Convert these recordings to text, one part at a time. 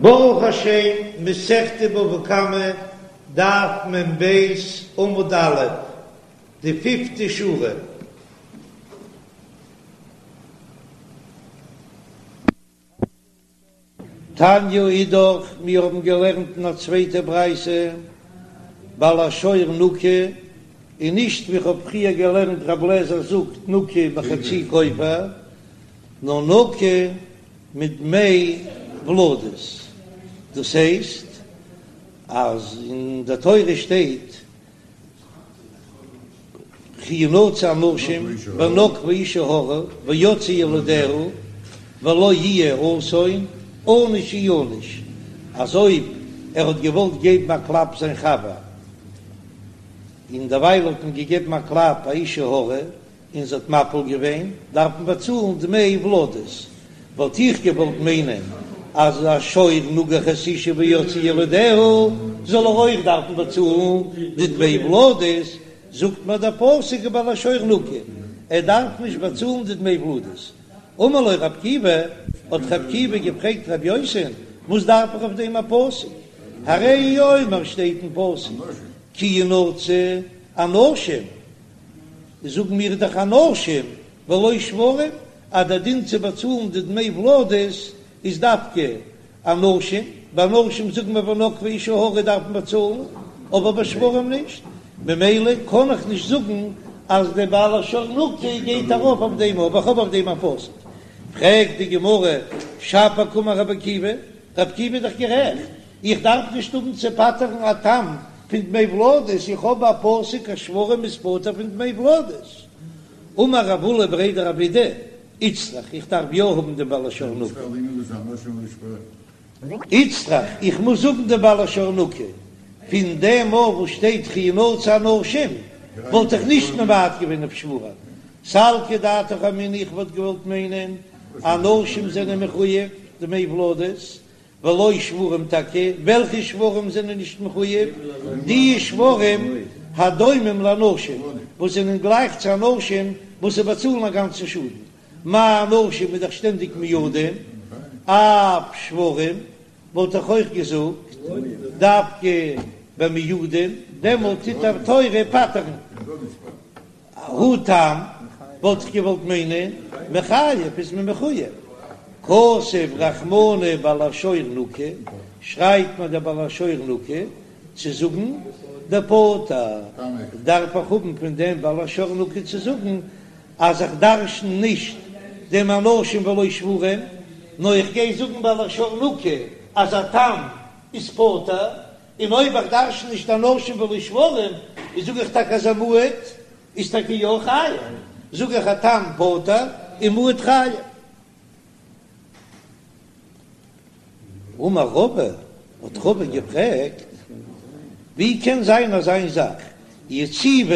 ברוך השם, מסכת בבא קמא, דף מ"ב, עמוד א', די פיפטע שורה. תניא אידך, מיר האבן געלערנט אין א צווייטע ברייתא, בעל השור נקי, און נישט ווי כ'האב פריער געלערנט רב לעזער זאגט נקי בחצי כופר, נאר נקי מדמי ולדות, דאס הייסט אז אין די תורה שטייט וכי ינצו אנשים ונגפו אשה הרה ויצאו ילדיה ולא יהיה אסון ענוש יענש, אז אויב ער האט געוואלט געבן א קלאפ זיין חבר און דערווייל האט מען געגעבן א קלאפ א אשה הרה און זי האט מפיל געווען, דארף מען באצאלן דמי ולדות. וואלט איך געוואלט מיינען אז א שור נגח את האשה ויצאו ילדיה זאל ער אויך דארפן באצאלן די דמי ולדות, זאגט מיר דער פסוק ובעל השור נקי, ער דארף נישט באצאלן די דמי ולדות. אמר לו רב עקיבא, האט רב עקיבא געפרעגט רב יוסי'ן, וואס דארף איך אויף דעם א פסוק? הרי הוא אומר שטייט אין פסוק כי ינצו אנשים. זאגן מיר דאך אנשים ולא שוורים אז דער דין צו באצאלן די דמי ולדות איז דווקא אנשים, ביי אנשים זאגן מיר ונגפו אשה הרה דארף מען באצאלן, אבער ביי שוורים נישט, ממילא קען איך נישט זאגן אז דער בעל השור נקי גייט ארויף אויף דעם אבער איך האב אויף דעם א פסוק. פרעגט די גמרא, שפיר קאמר רבי עקיבא, רבי עקיבא איז דאך גערעכט, איך דארף נישט האבן צו פטר'ן א תם פון דמי ולדות, איך האב א פסוק אז שוורים איז פטור פון דמי ולדות. אמר רב עולא בריה דרב אידי, איצטריך, איך דארף יא האבן דעם בעל השור נקי. איצטריך, איך מוז האבן דעם בעל השור נקי. פון דעם מאל וואס שטייט וכי ינצו אנשים, וואלט איך נישט ממעט געווען אויף שוורים. סלקא דעתך אמינא איך וואלט געוואלט מיינען אנשים זענען מחויב דמי ולדות, ולא שוורים טאקע, וועלכע שוורים זענען נישט מחויב? די שוורים הדומים לאנשים וואס זענען גלייך צו אנשים וואס זיי באצאלן א גאנצן שאדן, מה אנשים איז דאך שטענדיג מועדים, אף שוורים וואלט איך אויך געזאגט דווקא ביי מועדים, דעמאלט טוט די תורה פטר'ן. הא תם, וואלט איך געוואלט מיינען, מיחייב איז מען מחוייב. כתב רחמנא בעל השור נקי, שרייבט מיר דער בעל השור נקי צו זאגן דפטור, דארף איך האבן פון דעם בעל השור נקי צו זאגן אז איך דרשן נישט דעם אנשים ולא שוורים, נאר איך גיי זאגן בעל השור נקי אז א תם איז פטור, און אויב איך דרשן נישט אנשים ולא שוורים, איז זאג איך טאקע אז א מועד איז טאקע יא חייב, זאג איך א תם פטור און מועד חייב. אמר רבא, האט רבא געפרעגט, ווי קען זיין אזא זאך, יציבא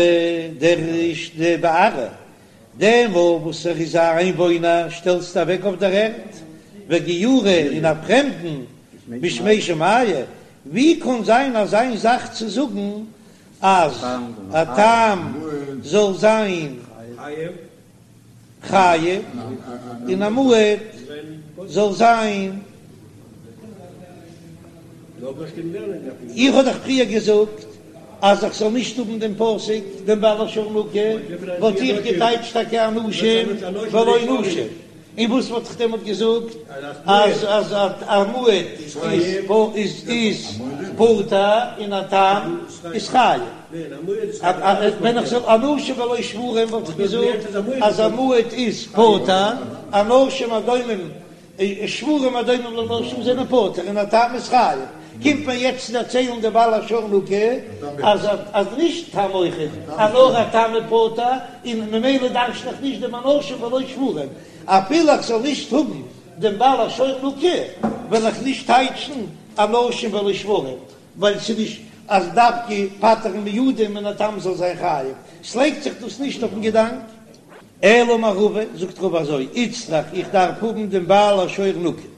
דער דבארעא, דעם וואס ער איז א איינוואוינער שטעלסטו אוועק אויף דער ערד, וגיורא און א פרעמדן בשמי שמיא, ווי קאן זיין אזא זאך צו זאגן אז א תם זאל זיין חייב און א מועד זאל זיין. איך האב דאך פריער געזאגט אז איך זאל נישט האבן דעם פסוק דעם בעל השור נקי, וואלט איך געטייטשט טאקע אנשים ולא נשים, און וואס וואלט איך דעמאלט געזאגט אז אז א מועד איז איז פטור און א תם איז חייב? ווען איך זאל אנשים ולא שוורים וואלט איך געזאגט אז א מועד איז פטור, אנשים הדומים שוורים הדומים לאנשים זענען פטור און א תם איז חייב, קומט מען יעצט צו דערציילן די בעל השור נקי אז אז נישט תם אויכעט אז נאר א תם איז פטור און ממילא דרש'ן איך נישט דעם אנשים ולא שוורים, אפילו איך זאל נישט האבן דעם בעל השור נקי וועל איך נישט טייטשן אנשים ולא שוורים ווייל ס'איז נישט אז דווקא פטר'ן מועדים און א תם זאל זיין חייב, ס'לייגט זיך דאס נישט אויפן געדאנק. אלא אמר רבא, זאגט רבא אזוי, איצטריך איך דארף האבן דעם בעל השור נקי.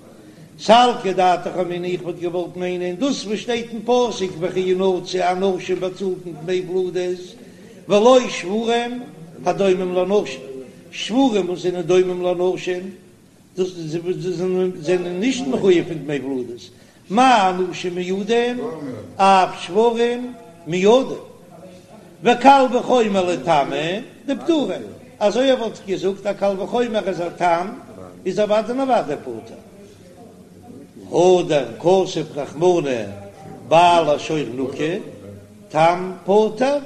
סלקא דעתך אמינא איך וואלט געוואלט מיינען דאס וואס שטייט אין פסוק וכי ינצו אנשים באצאלט מען דמי ולדות ולא שוורים הדומים לאנשים, שוורים וואס זענען דומים לאנשים דאס זענען נישט מחויב פון דמי ולדות. מה אנשים מועדים, אף שוורים מועדים. וקל וחומר לתמים דפטורים, אזוי וואלט איך געזאגט א קל וחומר אז א תם איז אוודאי און אוודאי פטור. הדר כתב רחמנא בעל השור נקי, תם פטור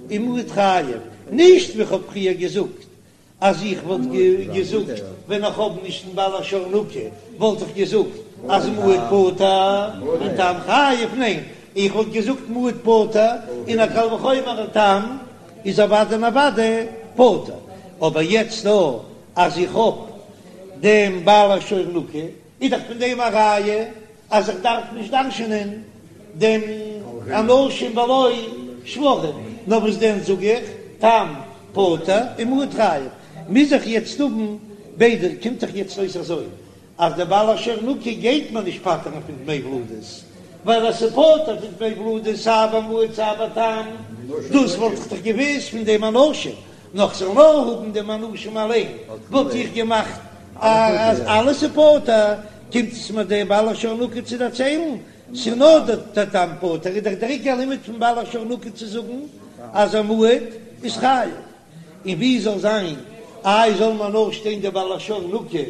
ומועד חייב, נישט ווי כ'האב פריער געזאגט אז איך וואלט געזאגט ווען איך האב נישט דעם בעל השור נקי וואלט איך געזאגט אז מועד פטור און תם חייב, ניין איך וואלט געזאגט מועד פטור און א קל וחומר א תם איז אוודאי און אוודאי פטור, אבער יעצט דא אז איך האב דעם בעל השור נקי איז דאך פון דעם א ראיה אז איך דארף נישט דרש'ענען דעם אנשים ולא שוורים, נאר וואס דען זאג איך, תם פטור און מועד חייב, מוז איך יעצט האבן ביידע, קומט דאך יעצט אויס אזוי אז דער בעל השור נקי גייט מיר נישט פטר'ן פון דמי ולדות, ווייל אז ס'פטור פון דמי ולדות סיי ביי מועד סיי ביי תם, דאס וואלט איך דאך געוואוסט פון דעם אנשים, נאר כ'זאל נאר האבן דעם אנשים אליין וואלט איך געמאכט אז אלעס איז פטור, קומט עס מיר דער בעל השור נקי צו דערציילן, ס'איז נאר דער תם פטור, איז דאך דער עיקר לימוד פון בעל השור נקי צו זאגן אז א מועד איז חייב, און ווי זאל זיין איי זאל מען נאר שטיין דער בעל השור נקי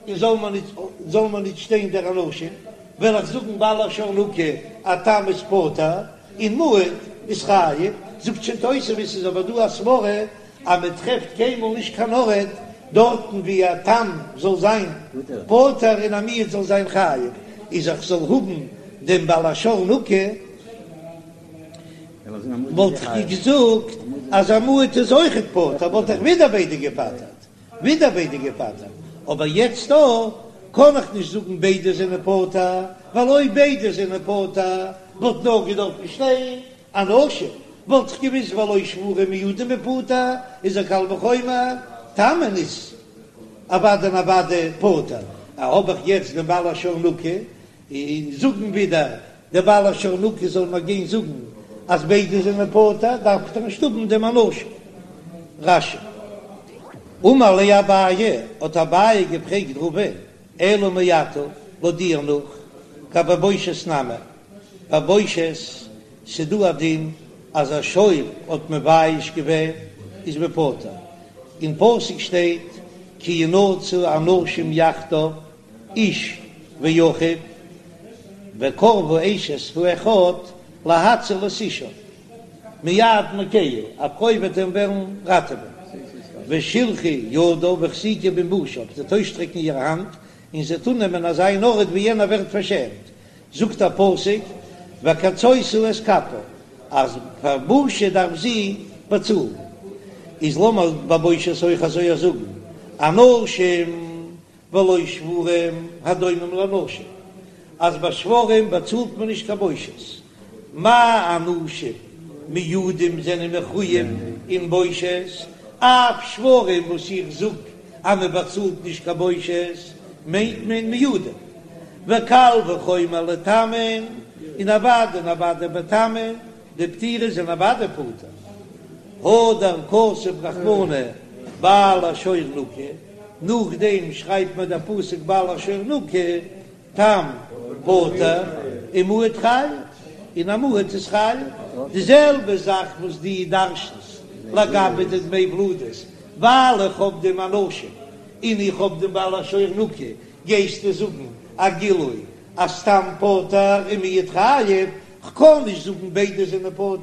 און זאל מען ניט זאל מען ניט שטיין דער אנשים, וועל איך זאגן בעל השור נקי א תם איז פטור און מועד איז חייב, זאגט שוין תוספות איז אבער דא א סברא אז מען טרעפט קיינמאל נישט קיין ארט דארטן ווי א תם זאל זיין פטור און א מועד זאל זיין חייב, איז איך זאל האבן דעם בעל השור נקי וואלט איך געזאגט אז א מועד איז אויכעט פטור וואלט איך ווידער ביידע געפטר'ט. ווידער ביידע געפטר'ט, אבער יעצט דא קען איך נישט זאגן ביידע זענען פטור, ווייל אויב ביידע זענען פטור וואלט נאר געדארפט שטיין אנשים, וואלט איך געוויסט ולא שוורים מועדים בפטור איז א קל וחומר, תמין איז אוודאי און אוודאי פטור, האב איך יעצט דעם בעל השור נקי, און זאגן ווידער דער בעל השור נקי זאל מיר גיין זאגן אז ביידע זענען פטור, דארף איך דאך נישט האבן דעם אנשים. רש"י. אמר ליה אביי, האט אביי געפרעגט רבא, אלא מעתה, לויט דיר נאך, גבי בושת נמי, ביי בושת ס'דא א דין אז א שור האט מבייש געווען איז מען פטור, אין פסוק שטייט כי ינצו אנשים יחדיו איש ואחיו, וקרבה אשת האחד להציל את אישה מיד מכהו, א פרוי וועט אים וועלן ראטעווען, ושלחה ידה והחזיקה במבושיו, זי וועט אויסשטרעקן איר האנט און זי וועט אננעמען אזא אן ארט ווי יענער ווערט פארשעמט, זאגט א פסוק וקצותה את כפה, אז פאר בושה דארף זי באצאלן, איז לאמיר ביי בושת אויך אזוי זאגן, אנשים ולא שוורים הדומים לאנשים, אז ביי שוורים באצאלט מען נישט קיין בושת, מה אנשים מועדים זענען מחויב אין בושת, אף שוורים וואס איך זאג אז מען באצאלט נישט קיין בושת מיינט מען מועדים, וקל וחומר לתמין, און אוודאי און אוודאי ביי תמין, דפטירי זענען אוודאי פטור, הדר כתב רחמנא בעל השור נקי. נאכדעם שרייבט מיר דער פסוק בעל השור נקי, תם פטור ומועד חייב, און א מועד איז חייב, די זעלבע זאך וואס דו דרש'נסט לגבי די דמי ולדות, ווייל איך האב דעם אנשים און איך האב דעם בעל השור נקי, גייסטו זאגן א גילוי אז תם פטור און מועד חייב, כ'קען נישט זאגן ביידע זענען פטור,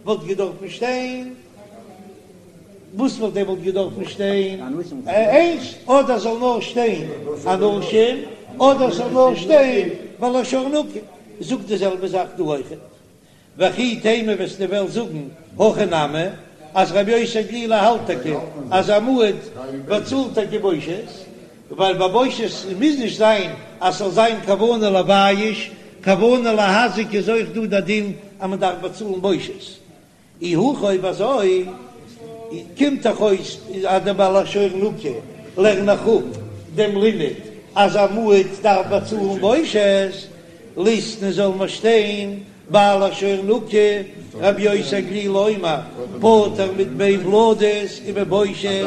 וואלט געדארפן שטיין. וואס וואלט דעמאלט געדארפן שטיין? איינס, אדער זאל נאר שטיין אנשים, אדער זאל נאר שטיין בעל השור נקי. זאגט די זעלבע זאך דא אויכעט. וכי תימא וועסטו וועלן זאגן הכי נמי, אז רבי יוסי הגלילי האלט טאקע אז א מועד באצאלט טאקע בושת, ווייל ביי בושת מוז נישט זיין אז ס'זאל זיין כוונה לבייש, כוונה להזיק איז אויך דא די דין אז מ'דארף באצאלן בושת. אי הכי אויב אזוי קומט דאך אויס אז דער בעל השור נקי לערן איך אפ דעם לימוד אז א מועד דארף באצאלן בושת, ליתני זאל מען שטיין בעל השור נקי רבי יוסי הגלילי אומר פטור מדמי ולדות ומבושת,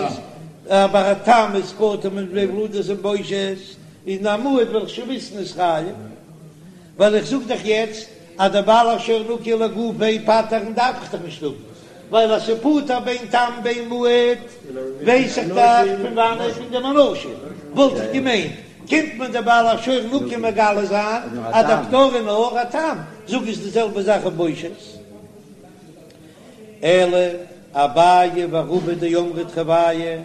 אבער א תם איז פטור מדמי ולדות און בושת, און א מועד וועל איך שוין וויסן איז חייב. ווייל איך זאג דאך יעצט אז דער בעל השור נקי לגופיה פטר'ן דארף איך דאך נישט האבן, ווייל אז ס'איז פטור בין תם בין מועד ווייס איך דאך פון וואנעט פון דעם אנשים, וואלט איך געמיינט קומט מיר דער בעל השור נקי מגלה זיין אז דער פטור איז נאר א תם, זאג איז די זעלבע זאך אויף בושת. אלא אביי ורבא דאמרי תרוייהו,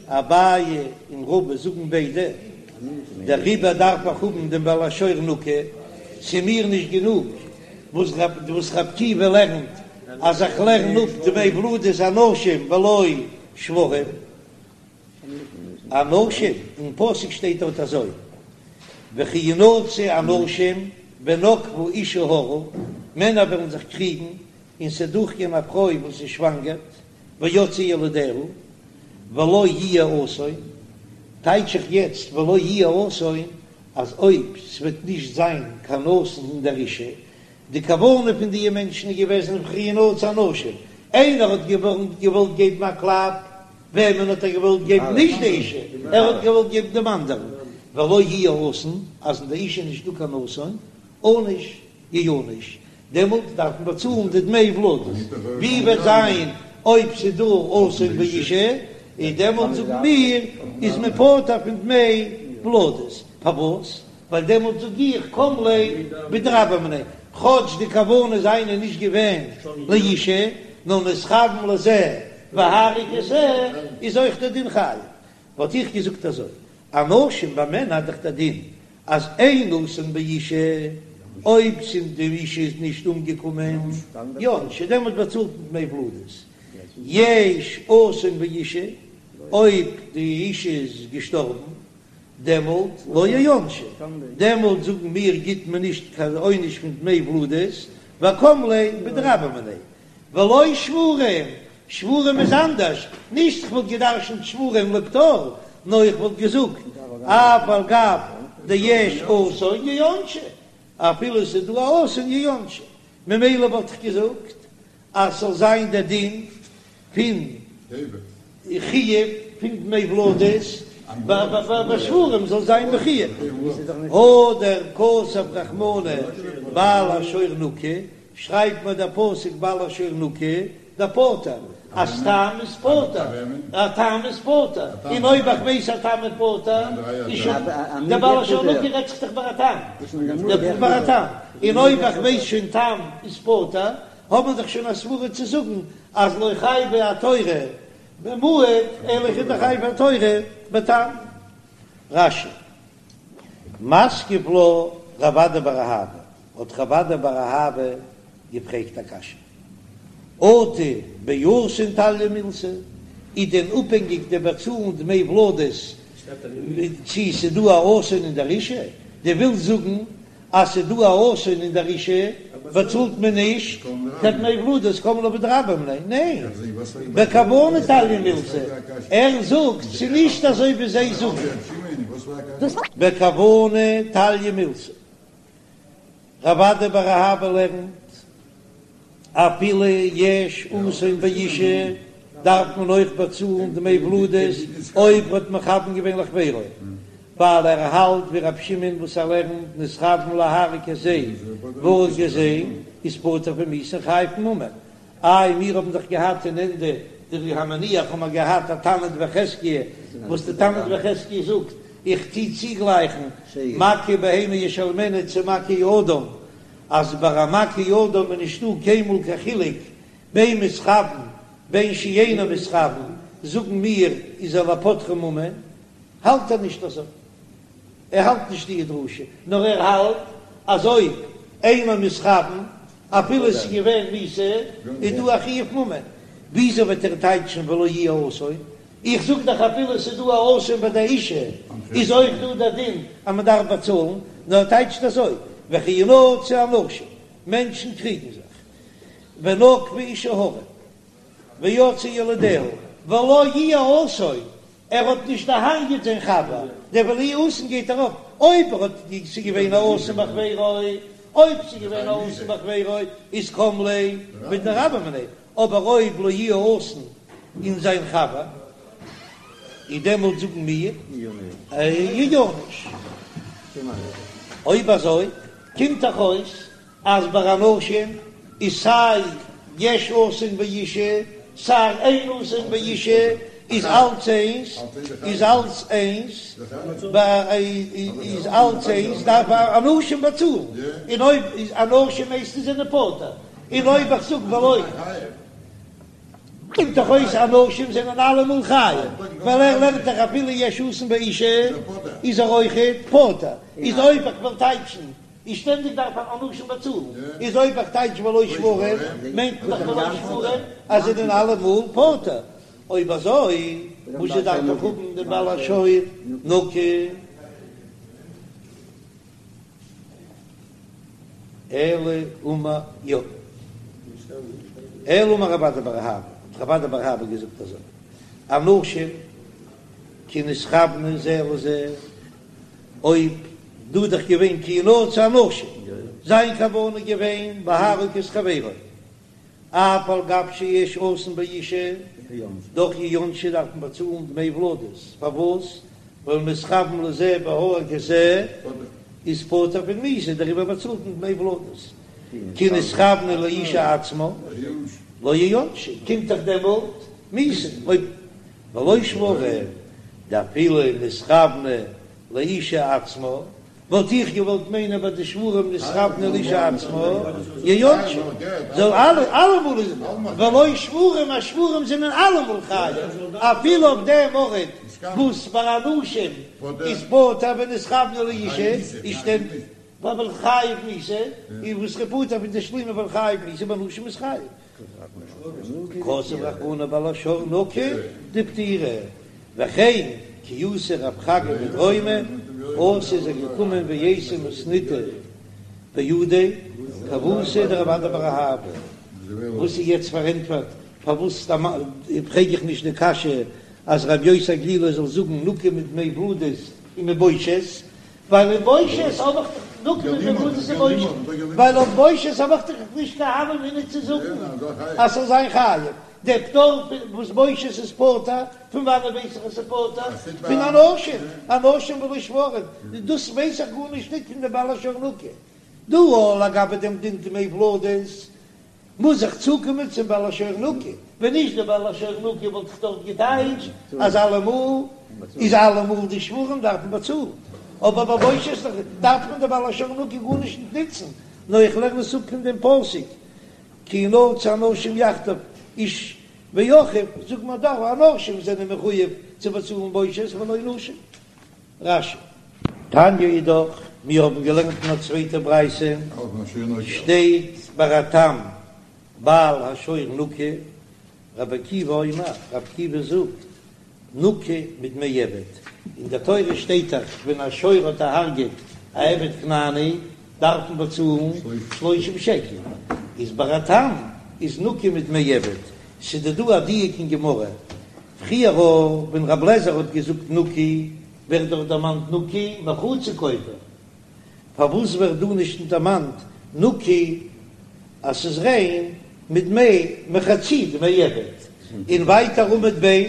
אביי און רבא זאגן ביידע, דעריבער דארף איך האבן דעם בעל השור נקי, ס'איז מיר נישט גענוג וואס ר' עקיבא לערנט אז איך לערן אפ דמי ולדות אנשים ולא שוורים. אנשים, אין פסוק שטייט דארט אזוי, וכי ינצו אנשים ונגפה אשה הרה, מענער וועלן זיך קריגן און ס'וועט דורכגיין א פרוי וואס איז שוואנגערט, ויצאו ילדיה, ולא יהיה אסון, טייטש איך יעצט ולא יהיה אסון, אז אויב ס'וועט נישט זיין קיין אסון אין דער אישה, די כוונה פון דיע מענטשן איז געוועזן וכי ינצו אנשים, איינער האט געוואלט געבן א קלאפ, וועמען האט ער געוואלט געבן? נישט די אישה, ער האט געוואלט געבן דעם אנדערן, ולא יהיה אסון, אז אין די אישה איז נישטא קיין אסון, ענוש יענש, דעמאלט דארף מען באצאלן די דמי ולדות, ווי וועט זיין אויב ס'איז דא אסון באישה, איז דעמאלט זאגן מיר איז מען פטור פון דמי ולדות, פארוואס? ווייל דעמאלט זאג איך קם ליה בדרבה מיניה, כאטש די כוונה זיינע איז נישט געווען לאישה, נאר נתכוון לזה והרג את זה, איז אויך דער דין חייב. וואלט איך געזאגט אזוי, אנשים ביי מענער איז דאך דער דין אז אין אסון באישה, אויב ס'איז די אישה איז נישט אומגעקומען, יענשו, דעמאלט באצאלט מען דמי ולדות, יש אסון באישה, אויב די אישה איז געשטארבן, דעמאלט לא יענשו, דעמאלט זאגן מיר גיט מען נישט קיין עונש פון דמי ולדות, וקם ליה בדרבה מיניה, ולא שוורים, שוורים איז אנדערש, נישט איך וואלט געדרשנט שוורים לפטור, נאר איך וואלט געזאגט אף על גב דיש אסון יענשו, אפילו ס'איז דא א אסון יענשו, ממילא וואלט איך געזאגט אז ס'זאל זיין דער דין פון חיוב פון דמי ולדות ביי שוורים זאל זיין בחיוב, הדר כתב רחמנא בעל השור נקי, שרייבט מיר דער פסוק בעל השור נקי, דפטור, אז תם איז פטור, א תם איז פטור, און אויב איך ווייס א תם איז פטור, איז שוין דער בעל השור נקי רעדט זיך דאך ביי א תם, ביי א תם, און אויב איך ווייס שוין תם איז פטור, האט מען דאך שוין א סברה צו זאגן אז לא חייבה התורה במועד אלא חייבה התורה בתם. רש"י, מתקיף לה רב אדא בר אהבה, האט רב אדא בר אהבה געפרעגט א קשיא, אטו באסון תליא מילתא, איז דען אפהענגיק די באצאלן דמי ולדות צי ס'דא א אסון אין דער אישה? דו ווילסט זאגן אז ס'איז דא א אסון אין דער אישה באצאלט מען נישט קיין דמי ולדות קם ליה בדרבה מיניה, ניין, בכוונה תליא מילתא, ער זאגט ס'איז נישט אזוי ווי זיי זאגן, בכוונה תליא מילתא, רב אדא בר אהבה לערנט אפילו יש אסון באישה דארף מען אויך באצאלן דמי ולדות אויב האט מכוון געווען לחבירו, ווייל ער האלט ווי רבי שמעון וואס ער לערנט נתכוון להרוג את זה והרג את זה איז פטור פון מיתה און חייב ממון. איי מיר האבן דאך געהאט אין ענדע די המניח האבן מיר געהאט א תנא דבי חזקיה וואס די תנא דבי חזקיה זאגט איך טוה צוגלייכן מכה בהמה ישלמנה צו מכה אדם אז ביי א מכה אדם איז נישטא קיינמאל קיין חילוק בין מתכוון בין שאינו מתכוון, זאגן מיר איז ער לפוטרו ממון, האלט ער נישט אזוי, ער האלט נישט די דרשה, נאר ער האלט אז אויב אינו מתכוון אפילו עס איז געווען מיתה איז דא א חיוב ממון, וויאזוי וועט ער טייטשן ולא יהיה אסון? איך זאג דאך אפילו עס איז דא א אסון ביי די אישה איז אויך דא דער דין אז מען דארף באצאלן, נאר ער טייטשט אזוי, וכי ינצו אנשים, מענטשן קריגן זיך, ונגפה אשה הרה, ויצאו ילדיה, ולא יהיה אסון, ער האט נישט דערהרגעט זיין חבר, דער ולא יהיה אסון גייט ארויף, אויב ער האט ס'איז געווען א אסון בחבירו, אויב ס'איז געווען א אסון בחבירו איז קם ליה בדרבה מיניה, אבער אויב לא יהיה אסון אין זיין חבר, איז דעמאלט זאגן מיר יענש. אויב אזוי. קומט דאך אויס אז ביי אנשים איז סיי יש אסון באשה סיי אין אסון באשה איז אלץ איינס, איז אלץ איינס, איז אלץ איינס דארף אנשים באצאלן, און אויב איז אנשים הייסט עס זענען פטור, און אויב איך זאג ולא. קומט דאך אויס אנשים זענען אלעמאל חייב, ווייל ער לערנט דאך אפילו יש אסון באשה איז ער אויכעט פטור, איז אויב איך וועל טייטשן איז שטענדיג דארף אנשים באצאלן, איז אויב איך טייטש ולא שוורים מיינט מען דאך ולא שוורים אז זענען אלעמאל פטור, אויב אזוי וואס דארף איך האבן דעם בעל השור נקי? אלא אמר יא. אלא אמר רב אדא בר אהבה, האט רב אדא בר אהבה געזאגט אזוי, אנשים כי נתכוונו זה לזה, אויב דא איז דאך געווען כי ינצו אנשים, זיין כוונה איז געווען להרוג את חברו, אף על גב שיש אסון באשה, דאך יענשו דארף מען באצאלן דמי ולדות, פארוואס? ווייל נתכוון לזה והרג את זה איז פטור פון מיתה, דעריבער באצאלט מען דמי ולדות. כי נתכוונו לאשה עצמה לא יענשו, קומט דאך דעמאלט מיתה, אויב ולא שוורים דאפילו נתכוונו לאשה עצמה, וואלט איך געוואלט מיינען ביי די שוורים נתכוונו לאשה עצמה יענשו, זאל אלע אלעמאל איז ולא שוורים אז שוורים זענען אלעמאל חייב אפילו אויף דעם ארט וואס ביי אנשים איז פטור ווען נתכוונו לאשה איז שטענדיג ווייל חייב מיתה און וואס איז פטור פון תשלומין ווייל חייב מיתה ביי נשים איז חייב. כתב רחמנא בעל השור נקי דפטירי, וכן כי אתא רב חגא מדרומא, אתא איז ער געקומען ואייתי מתניתא בהדיה כוותיה דרב אדא בר אהבה, וואס איז יעצט פארענטפערט פארוואס פרעג איך נישט די קשיא אז רבי יוסי הגלילי זאל זאגן נקי מדמי ולדות און מבושת, ווייל אין בושת האב איך דאך נקי מדמי ולדות און בושת, ווייל אויף בושת האב איך דאך נישט קיין הוה אמינא צו זאגן אז ס'זאל זיין חייב, דער פטור וואס בושת איז פטור, פון וואנעט ווייס איך אז ס'איז פטור? פון אנשים, אנשים ולא שוורים, דאס ווייס איך גארנישט ניט פון די בעל השור נקי. דא לגבי דעם דין דמי ולדות מוז איך צוקומען צום בעל השור נקי, ווען נישט דער בעל השור נקי וואלט איך דארט געטייטשט אז אלעמאל איז אלעמאל די שוורים דארפן באצאלן, אבער ביי בושת דארף מען די בעל השור נקי גארנישט נישט נוצן, נאר איך לערן עס אפ פון דעם פסוק כי ינצו אנשים יחדיו איש ואחיו, זאגט מען דאך אנשים זענען מחויב צו באצאלן בושת ולא נשים. רש"י. תניא אידך, מיר האבן געלערנט אין א צווייטע ברייתא, שטייט ביי א תם בעל השור נקי, רבי עקיבא אומר, רבי עקיבא זאגט, נקי מדמי עבד, אין דער תורה שטייט דאך ווען א שור האט דערהרגעט א עבד כנעני דארף מען באצאלן שלושים שקל, איז ביי א תם איז נקי מדמי עבד, ס'איז דא דא א דיוק אין גמרא, פריער ווען רב לעזער האט געזאגט נקי, ווערט דאך דערמאנט נקי מחצי כופר, פארוואס ווערט דא נישט דערמאנט נקי אז ס'איז ריין מדמי מחצי דמי עבד? און ווייטער עמוד ב'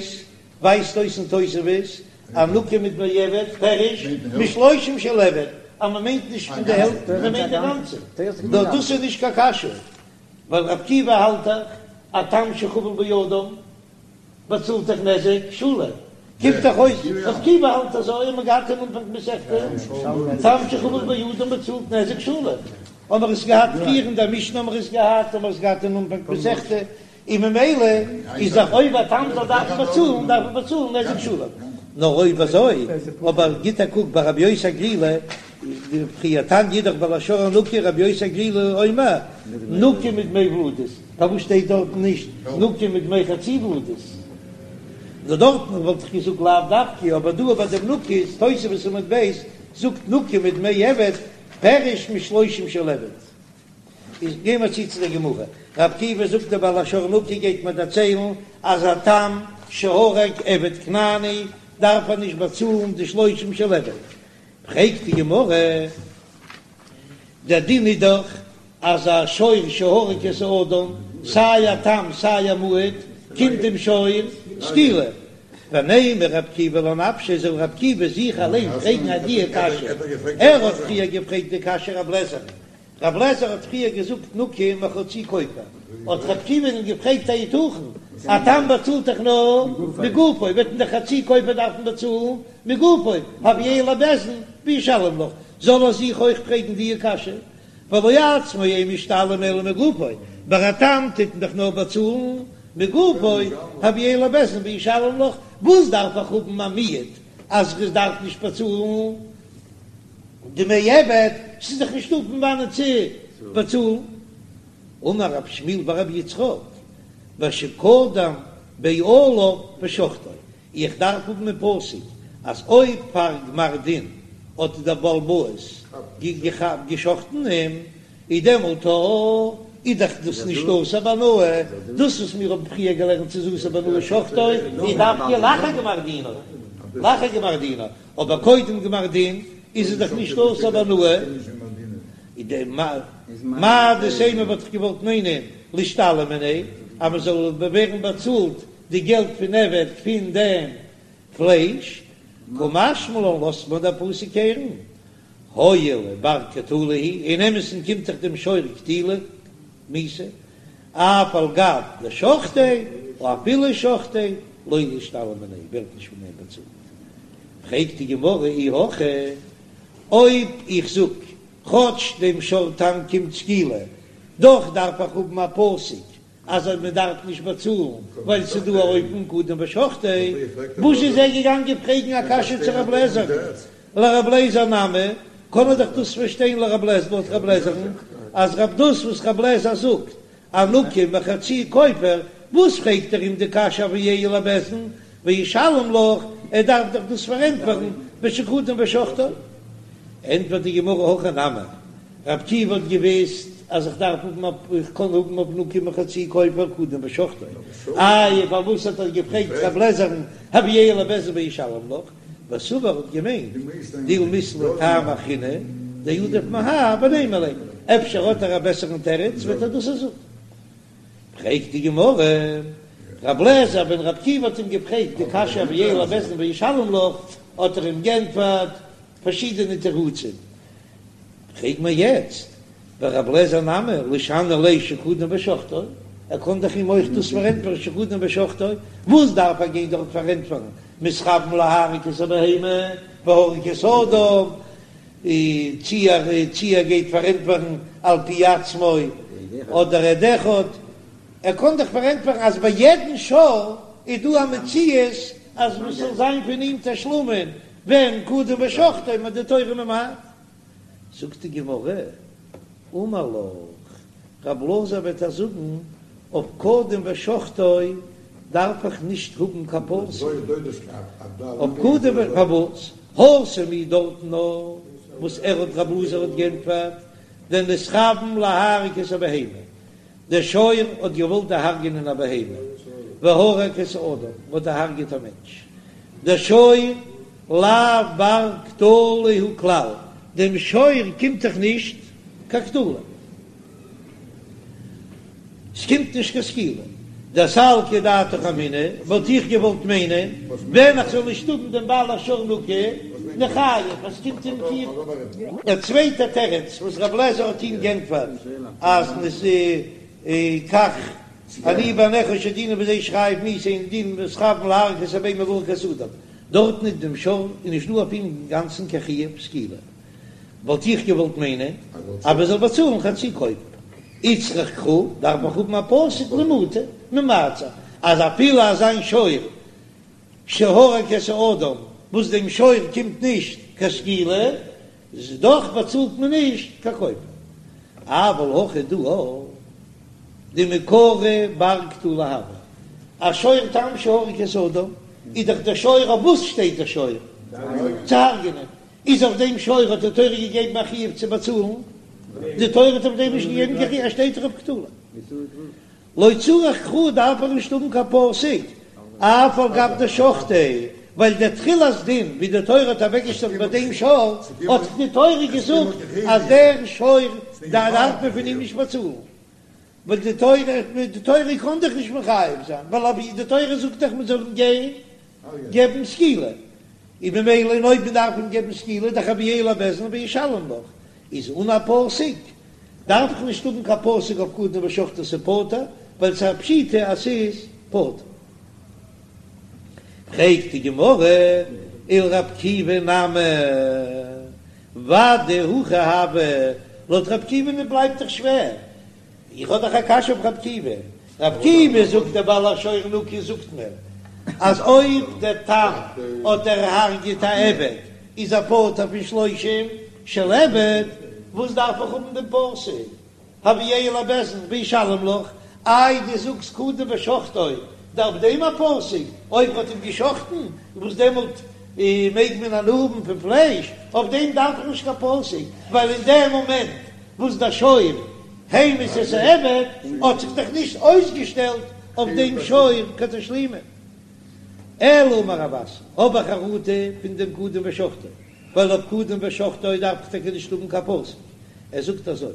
ווייזט אויס אין תוספות אז נקי מדמי עבד פירוש משלושים של עבד, אז מ'מיינט נישט פון די העלפט מ'מיינט די גאנצע, נאר דאס איז נישט קיין קשיא ווייל רב עקיבא האלט דאך א תם שחבל באדם באצאלט דאך נזק שלם, קומט דאך אויס רב עקיבא האלט אזוי, האט מען געהאט אין אנפאנג מסכתא, תם שחבל באדם באצאלט נזק שלם, האמער עס געהאט פריער אין דער משנה האמער עס געהאט, האמער עס געהאט אין אנפאנג מסכתא, און ממילא איז דאך אויב א תם זאל דארפן באצאלן דארף ער באצאלן נזק שלם, נאר אויב אזוי, אבער גיט א קוק ביי רבי יוסי הגלילי, פריער תניא אידך בעל השור נקי רבי יוסי הגלילי אומר נקי מדמי ולדות, פארוואס שטייט דארטן נישט נקי מדמי חצי ולדות? נאר דארטן וואלט איך געזאגט לאו דווקא, אבער דא ביי דעם נקי איז תוספות עמוד ב' זאגט נקי מדמי עבד פירוש משלושים של עבד. איז גיי מיר צו צו דער גמרא, רב עקיבא זאגט דער בעל השור נקי גייט מיר דערציילן אז א תם שהרג עבד כנעני דארף ער נישט באצאלן די שלושים של עבד, פרעגט די גמרא, דער דין איז דאך אז א שור שהרג את האדם, סיי א תם סיי א מועד, קומט דעם שור סקילה. ונימא רב עקיבא לנפשיה, זאל רב עקיבא זיך אליין פרעגן אט די קשיא, ער האט פריער געפרעגט די קשיא רב לעזער'ן. רב לעזער האט פריער געזאגט נקי מחצי כופר, האט רב עקיבא אים געפרעגט היתכן, א תם באצאלט דאך נאר מגופו, וועט מען דאך חצי כופר דארפן באצאלן מגופו, הביאהו לבית דין וישלם לך, זאל ער זיך אויך פרעגן די קשיא, והלא עצמו אין משתלם אלא מגופו, ביי א תם טוט מען דאך נאר באצאלן מגופו, הביאהו לבית דין וישלם לך, וואס דארף איך האבן א מיעוט אז איך דארף נישט באצאלן דמי עבד, ס'איז דאך נישטא פון וואנען צו באצאלן. אמר רב שמואל בר רבי יצחק, בשקדם בעליו ושחטו, איך דארף האבן אין פסוק אז אויב פאר גמר דין האט דער בעל הבית געשחט'ן אים, איז דעמאלט איז דאך דאס נישט אסור בהנאה, דאס וואס מיר האבן פריער געלערנט ס'איז אסור בהנאה שחטו, איז דווקא לאחר גמר דינו, לאחר גמר דינו, אבער קודם גמר דין איז עס דאך נישט אסור בהנאה, איז די מהו דתימא וואלט איך געוואלט מיינען לישתלם מיניה אז מען זאל ווערן באצאלט די געלט פון עבד פון דעם פלייש, קא משמע לן לאזט מיר דער פסוק הערן, הואיל ובר קטלא הוא, אין אמת'ן קומט דאך דעם שור קטילה מיתה, אף על גב דשחטיה, או אפילו שחטיה, לא לישתלם מיניה, ווערט נישט פון דעם באצאלט. פרעגט די גמרא אי הכי, אויב איך זאג, כאטש דעם שור תם קומט סקילה, דאך דארף איך האבן א פסוק אז מען דארף נישט באצאלן ווייל ס'איז דא א אופן קדם ושחטיה, וואס איז ער געגאנגען פרעגן א קשיא צו רב לעזער'ן? לרב לעזער נמי, קען ער דאך דאס פארשטיין לרב לעזער לויט רב לעזער'ן אז רב דאס וואס רב לעזער זאגט א נקי מחצי כופר, וואס פרעגט ער אים די קשיא הביאהו לבית דין וישלם לך, ער דארף דאך דאס פארענטפערן בשקדם ושחטו. ענטפערט די גמרא הכי נמי, רב עקיבא האט געוויסט אז איך דארף האבן א איך קען האבן אויף נקי מחצי כופר קדם ושחטו, איי פארוואס האט ער געפרעגט רב לעזער'ן הביאהו לבית דין וישלם לך, וסבר האט געמיינט דילמא אית ליה טעמא אחרינא דעדיף מהאי ונימא ליה, אפשר האט ער א בעסערן תירוץ וועט ער דאס זאגן. פרעגט די גמרא, רב לעזער ווען רב עקיבא האט אים געפרעגט די קשיא הביאהו לבית דין וישלם לך האט ער אים גענטפערט פארשידענע תירוצים, פרעג מיר יעצט ורב לעזער נמי לישני ליה שקדם ושחטו, ער קען דאך אים אויך דאס פארענטפערן שקדם ושחטו, וואס דארף ער גיין דארט פארענטפערן מתכוון להרוג את הבהמה והרג את האדם, צי ער צי ער גייט פארענטפערן על פי עצמו אדער עד אחד, ער קען דאך פארענטפערן אז ביי יעדן שור איז דא א מציאות אז מען זאל זיין פון אים תשלומין ווען קדם ושחטו איז די תורה ממעט. זאגט די גמרא, אמר לך, רב אלעזר וועט דיר זאגן, אויף קדם ושחטו דארף איך נישט האבן קיין פסוק, אויף קדם ו, פארוואס? התם הוא דארטן נאר וואס ער האט רב אלעזר האט גענטפערט, דנתכוון להרוג את הבהמה, דער שור האט געוואלט דערהרגענען א בהמה, והרג את האדם, האט דערהרגעט א מענטש. דער שור לאו בר קטלא הוא כלל, דעם שור קומט דאך נישט קיין קטלא, ס'קומט נישט קיין סקילה. דסלקא דעתך אמינא, וואלט איך געוואלט מיינען, ווען איך זאל נישט האבן דעם בעל השור נקי, ניחייב, אז ס'קומט אים קיין. דער צווייטער תירוץ וואס רב לעזער האט אים גענטפערט אז כך אני בעיניך שדינו בזה שחייב מיתה אינו דין מתכוון להרוג את הבהמה והרג את האדם, דארטן איז דעם שור איז נישט דא אויף אים אינגאנצן קיין חיוב סקילה, וואלט איך געוואלט מיינען אז מען זאל באצאלן חצי כופר, איצטריך קרא דארף איך האבן א פסוק למעוטי ממעט זיין אז אפילו אזא שור שהרג את האדם וואס דעם שור קומט נישט קיין סקילה, איז דאך באצאלט מען נישט קיין כופר. אבל הכא דא דמעיקרא בר קטלא הוה, א שור תם שהרג את האדם, איז דאך דער שור אויף וואס שטייט דער שור? צו הרג'נען, איז אויף דעם שור האט די תורה געגעבן א חיוב צו באצאלן? די תורה האט אויף דעם נישט געגעבן קיין חיוב, ער שטייט דאך אויף קטלא. לא צריך קרא דארף ער נישט האבן קיין פסוק, אף על גב דשחטיה, ווייל דער תחילת דין ווי די תורה האט אוועקגעשטעלט ביי דעם שור, האט די תורה געזאגט אז דער שור דארף מען פון אים נישט באצאלן, ווייל די תורה די תורה קען דאך נישט מחייב זיין, ווייל אויב די תורה זאגט דאך מען זאל אים גיין געבן סקילה, און ממילא און אויב מען דארף אים געבן סקילה דאך הביאהו לבית דין וישלם לך, איז אן א פסוק. דארף איך נישט האבן קיין פסוק אויף קדם ושחטו ס'פטור, ווייל ס'איז א פשיטא אז ס'איז פטור. פרעגט די גמרא, ולר' עקיבא נמי, ודאי הכי הוה, לויט ר' עקיבא'ן בלייבט דאך שווער, איך האב דאך א קשיא אויף ר' עקיבא, ר' עקיבא זאגט דער בעל השור נקי זאגט מיר אז אויב דער תם האט דערהרגעט א עבד איז ער פטור פון שלושים של עבד, וואס דארף איך האבן דעם פסוק הביאהו לבית דין וישלם לך, איי דו זאגסט קדם ושחטו דארף דעם א פסוק, אויב מ'האט אים געשחטן וואס דעמאלט מעג מען הנאה האבן פון פלייש, אויף דעם דארף איך נישט קיין פסוק, ווייל אין דעם מאמענט וואס דער שור המית את העבד האט זיך דאך נישט אויסגעשטעלט אויף דעם שור קיין תשלומין. אלא אמר רב אסי, האב איך חרטה פון דעם קדם ושחטו, ווייל אויף קדם ושחטו דארף איך טאקע נישט האבן קיין פסוק, ער זאגט אזוי,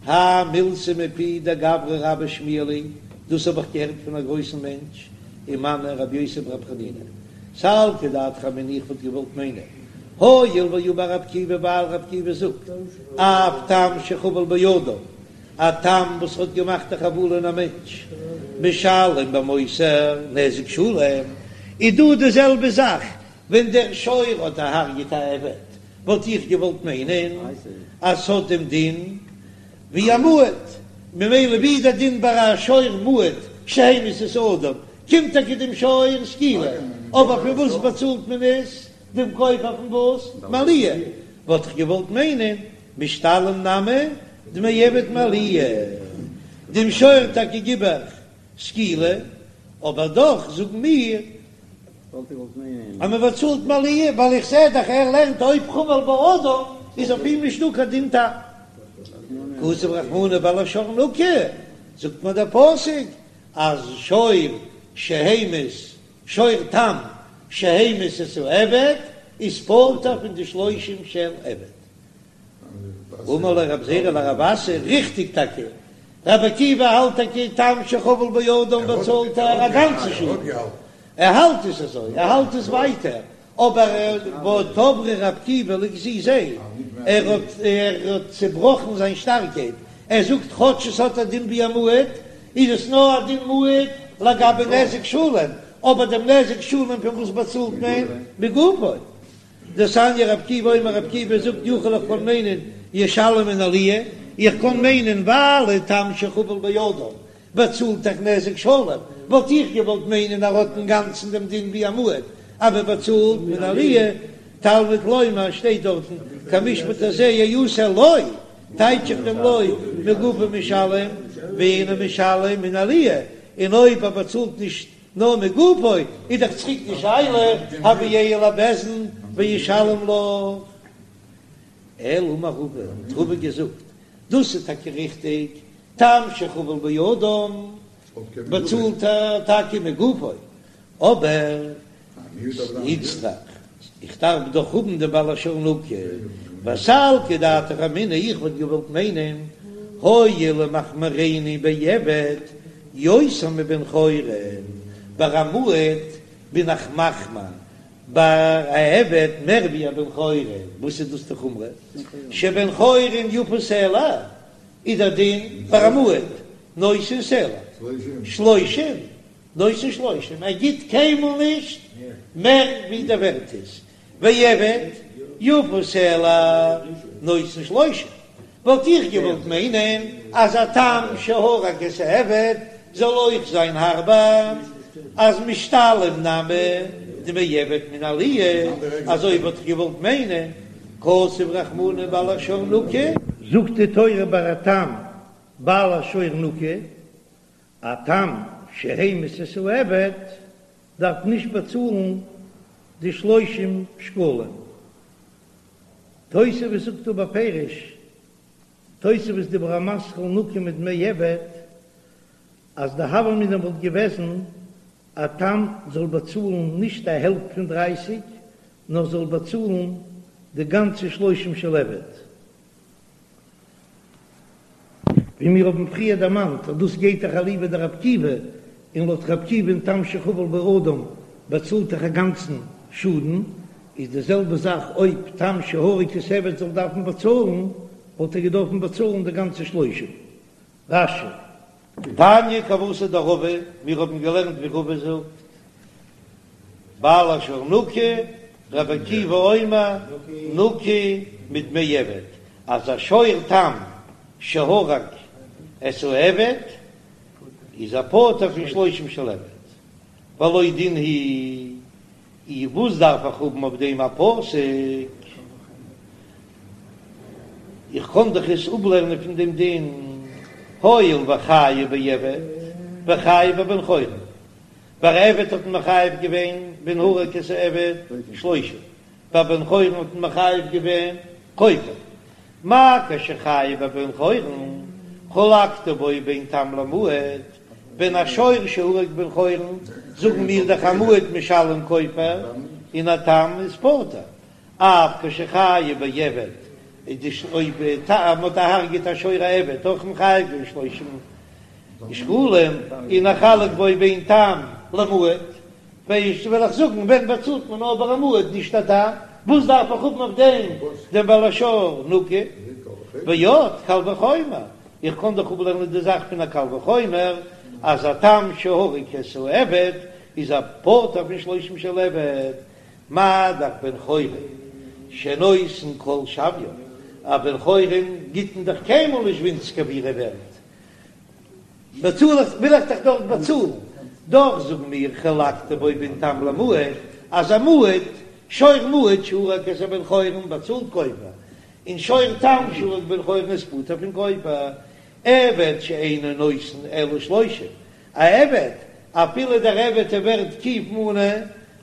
האי מילתא מפי דגברא רבה שמיע לי, דאס האב איך געהערט פון א גרויסן מענטש, ומנו רבי יוסי ברבי חנינא, סלקא דעתך אמינא איך וואלט געוואלט מיינען, הואיל ואמר רבי עקיבא ווייל רבי עקיבא זאגט, אף תם שחבל באדם, א תם וואס האט געמאכט א חבלה אין א מענטש, משלם במותר נזק שלם, איז דא די זעלבע זאך ווען דער שור האט דערהרגעט א עבד, וואלט איך געוואלט מיינען אז ס'האט דעם דין ווי א מועד, ממילא ווי איז דער דין ביי א שור מועד שהמית את האדם, קומט טאקע דעם שור סקילה, אבער פון וואס באצאלט מען עס? דעם כופר פון וואס? מעליה, וואלט איך געוואלט מיינען משתלם נמי דמי עבד מעליה, דעם שור טאקע גיב איך סקילה, אבער דאך זאגן מיר אז מען באצאלט מעליה, ווייל איך זע דאך ער לערנט אויב חבל באדם איז אויף אים נישטא קיין דין תם. כתב רחמנא בעל השור נקי, זאגט מיר דער פסוק אז שור שהמית שור תם שהמית את העבד איז פטור פון די שלושים של עבד. אמר ליה רב זירא לרב אסי, ריכטיג טאקע, רבי עקיבא האלט טאקע תם שחבל באדם באצאלט ער א גאנצע שאדן, ער האלט עס אזוי, ער האלט עס ווייטער, אבער תבריה רבי עקיבא לגזיזיה, ער האט ער האט צעבראכן זיין שטארקייט, ער זאגט כאטש עס האט א דין ווי א מועד, איז עס נאר א דין מועד לגבי נזק שלם, אבער דעם נזק שלם פון וואס באצאלט מען? מגופו. דתניא רבי עקיבא אומר רבי עקיבא זאגט יכול איך קען מיינען ישלם מן העליה, איך קען מיינען ווייל תם שחבל באדם באצאלט דאך נזק שלם, וואלט איך געוואלט מיינען ער האט אינגאנצן דעם דין ווי א מועד אז מען באצאלט מן העליה, תלמוד לומר שטייט דארטן כמשפט הזה יעשה לו, טייטש איך דעם לו מגופו משלם ואינו משלם מן העליה, און אויב ער באצאלט נישט נאר מגופו איז דאך צוריק די שאלה הביאהו לבית דין וישלם לך. אלא אמר רבא, האט רבא געזאגט, דאס איז טאקע ריכטיג, תם שחבל באדם באצאלט ער טאקע מגופו, אבער איצטריך, איך דארף דאך האבן דעם בעל השור נקי, וסלקא דעתך אמינא, איך וואלט געוואלט מיינען, הואיל ומחמירני בעבד יותר מבן חורין, ביי א מועד בין איך מחמיר ביי א עבד מער ווי א בן חורין, וואס איז דאס די חומרא? שבן חורין יפה סלע איז דער דין ביי א מועד נותן סלע שלושים נותן שלושים, ער גיט קיינמאל נישט מער ווי דער ווערט איז, ועבד יפה סלע נותן שלושים, וואלט איך געוואלט מיינען אז א תם שהרג את העבד זאל אויך זיין הארבער, אז משתלם נמי דמי עבד מן העליה, אזוי וואלט איך געוואלט מיינען, כתב רחמנא בעל השור נקי. זאגט די תורה ביי א תם בעל השור נקי, א תם שהמית את העבד דארף נישט באצאלן די שלושים שקלים. תוספות זאגט דא בפירוש, תוספות דיבור המתחיל נקי מדמי עבד, אז די הוה אמינא וואלט געוועזן א תם זאל באצאלן נישט א העלפט פון דרייסיג, נאר זאל באצאלן די גאנצע שלושים של עבד. ווי מיר האבן פריער דערמאנט אז דאס גייט דאך אליבא דרבי עקיבא, און לויט רבי עקיבא אין תם שחבל באדם באצאלט דאך א גאנצן שאדן, איז די זעלבע זאך אויב תם שהרג את העבד זאל דארפן באצאלן. וואלט ער געדארפן באצאלן די גאנצע שלושים. רש"י. תניא כוותיה דרבא, מיר האבן געלערנט ווי רבא זאגט, בעל השור נקי, רבי עקיבא אומר נקי מדמי עבד, אז א שור תם שהרג את העבד איז ער פטור פון שלושים של עבד, והלא דין הוא אי וואס דארף איך האבן אויף דעם א פסוק? איך קען דאך עס אפלערנען פון דעם דין, הואיל וחייב בעבד וחייב בבן חורין, ביי עבד האט מען מחייב געווען ווען הרג את העבד שלושים, ביי בן חורין האט מען מחייב געווען כופר, מה כשחייב בבן חורין חלקת בו בין תם למועד, ווען א שור שהרג בן חורין, זאגן מיר דאך א מועד משלם כופר און א תם איז פטור, אף כשחייב בעבד, אויב מ'האט דערהרגעט א שור א עבד אויך מחייב געווען שלושים שקלים, און נחלק בו בין תם למועד, ווייסט וועל איך זאגן ווען באצאלט מען נאר ביי א מועד נישט א תם, וואס דארף איך האבן אויף דעם דעם בעל השור נקי, ועוד קל וחומר, איך קען דאך אפלערנען די זאך פון א קל וחומר אז א תם שהרג את העבד איז ער פטור פון שלושים של עבד, מה דאך בן חורין שנותן כל שוויו, א בן חורין גיט מען דאך קיינמאל נישט ווינציגער ווי ער איז ווערט, באצאל איך וויל איך דאך דארט באצאלן, דאך זאגן מיר חלקת בו בין תם למועד, אז א מועד, שור מועד שהרג את הבן חורין באצאלט כופר, און שור תם שהרג בן חורין איז פטור פון כופר, עבד שאינו נותן אלא שלושים, א עבד, אפילו דער עבד איז ווערט קוף מנה,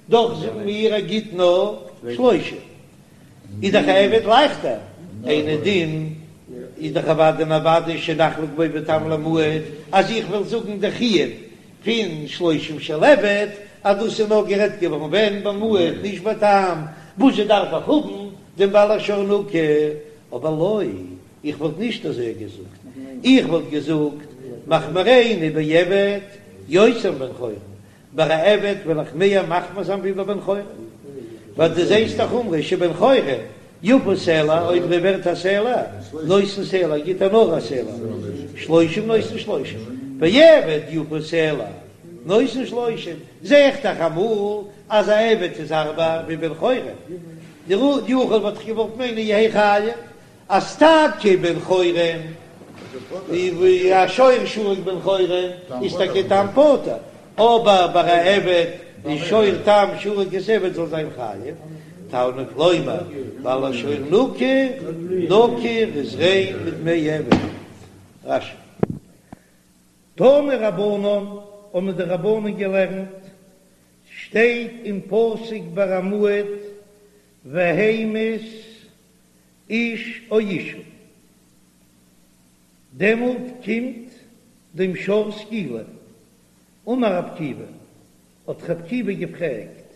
דאך זאגן מיר ער גיט נאר שלושים, איז דאך א עבד לייכטער, אינו דין איז דאך אוודאי און אוודאי שנחלק בו בין תם למועד, אז איך וועל זאגן די חיוב פון שלושים של עבד אז דאס איז נאר גערעדט געווארן ווען ביי מועד נישט ביי תם, וואזשע דארף איך האבן דעם בעל השור נקי, אבער לא, איך וואלט נישט אזוי געזאגט, איך וואלט געזאגט מחמירנו בעבד יותר מבן חורין, ביי א עבד וועל איך מער מחמיר זיין ווי ביי בן חורין, ווייל דו זעסט א חומרא שבן חורין יפה סלע, אויב ער ווערט א סלע, נותן סלע, גיט ער נאר א סלע, שלושים נותן שלושים, ועבד יפה סלע, נותן שלושים, זע איך דאך אמאל אז א עבד איז הארבער ווי בן חורין, דיכול וואלט איך געוואלט מיינען יהא חייב, אז טאקע בן חורין, ווי א שור שהרג בן חורין איז טאקע תם פטור, אבער ביי א עבד איז שור תם שהרג את העבד זאל זיין חייב, תלמוד לומר בעל השור נקי, נקי איז ריין מדמי עבד. רש"י. תנו רבנן, האבן די רבנן געלערנט, שטייט אין פסוק ביי א מועד והמית איש או אשה, דעמאלט קומט דעם שור סקילה. אמר רב עקיבא, האט רב עקיבא געפרעגט,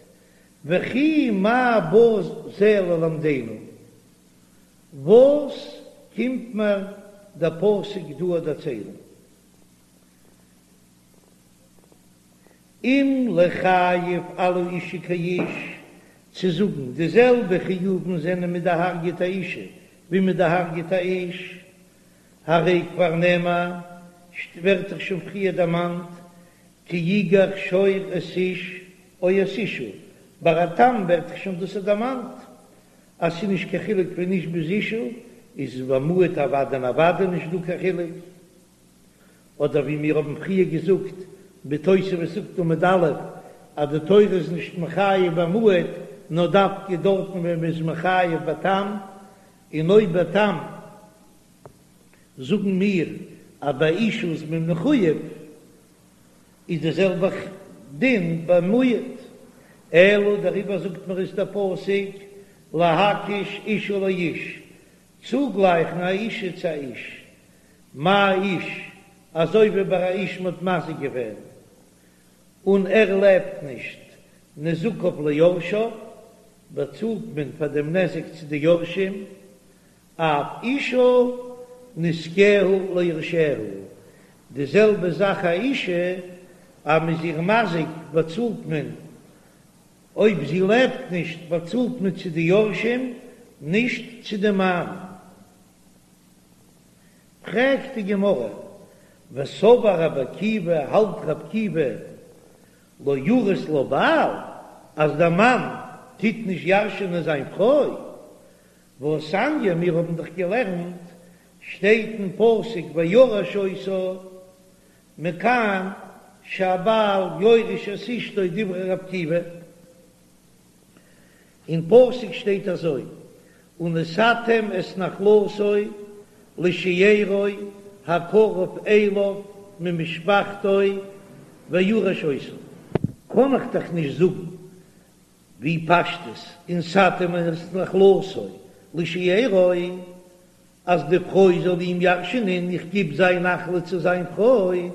וכי מה בא זה ללמדנו, וואס קומט מיר דער פסוק דא דערציילן? אם לחייב על האשה כאיש, צו זאגן די זעלבע חיובים זענען מ'האט דערהרגעט א אשה ווי מ'האט דערהרגעט א איש, הרי כבר נאמר, ווערט דאך שוין פריער דערמאנט, כי יגח שור את איש או את אשה, ביי א תם ווערט דאך שוין דאס דערמאנט אז ס'איז נישט קיין חילוק פון איש ביז אשה, איז ביי מועד אוודאי און אוודאי נישט דא קיין חילוק. אדער ווי מיר האבן פריער געזאגט בתוספות זאגט עמוד א' אז די תורה איז נישט מחייב ביי מועד נאר דווקא דארטן ווען מען איז מחייב ביי תם, און אויב ביי תם זאגן מיר אז ביי אשה איז מען מחויב איז די זעלבע דין ביי מועד, אלא דעריבער זאגט מיר עס דער פסוק להקיש אשה לאיש, צוגלייכן א אשה צו א איש, מה איש, אזוי ווי ביי א איש מ'האט מזיק געווען און ער לעבט נישט, נזקיו ליורשיו, באצאלט מען פאר דעם נזק צו די יורשים, אף אשה נזקיה ליורשיה, די זעלבע זאך א אשה, אז מ'איז איר מזיק באצאלט מען, אויב זי לעבט נישט באצאלט מען צו די יורשים, נישט צו די מאן. פרעגט די גמרא, וסבר רבי עקיבא, האלט רבי עקיבא לא ירית לה בעל, אז דער מאן טוט נישט ירש'ענען זיין פרוי, והתניא, מיר האבן דאך געלערנט, שטייט אין פסוק וירש אותה, מכאן שהבעל יורש את אשתו דברי רבי עקיבא, אין פסוק שטייט אזוי, ונתתם את נחלתו לשארו הקרוב אליו ממשפחתו וירש אותה. קען איך דאך נישט זאגן ווי פשטות ונתתם את נחלתו לשארו אז די פרוי זאל אים ירש'נען, איך גיב זיין נחלה צו זיין פרוי,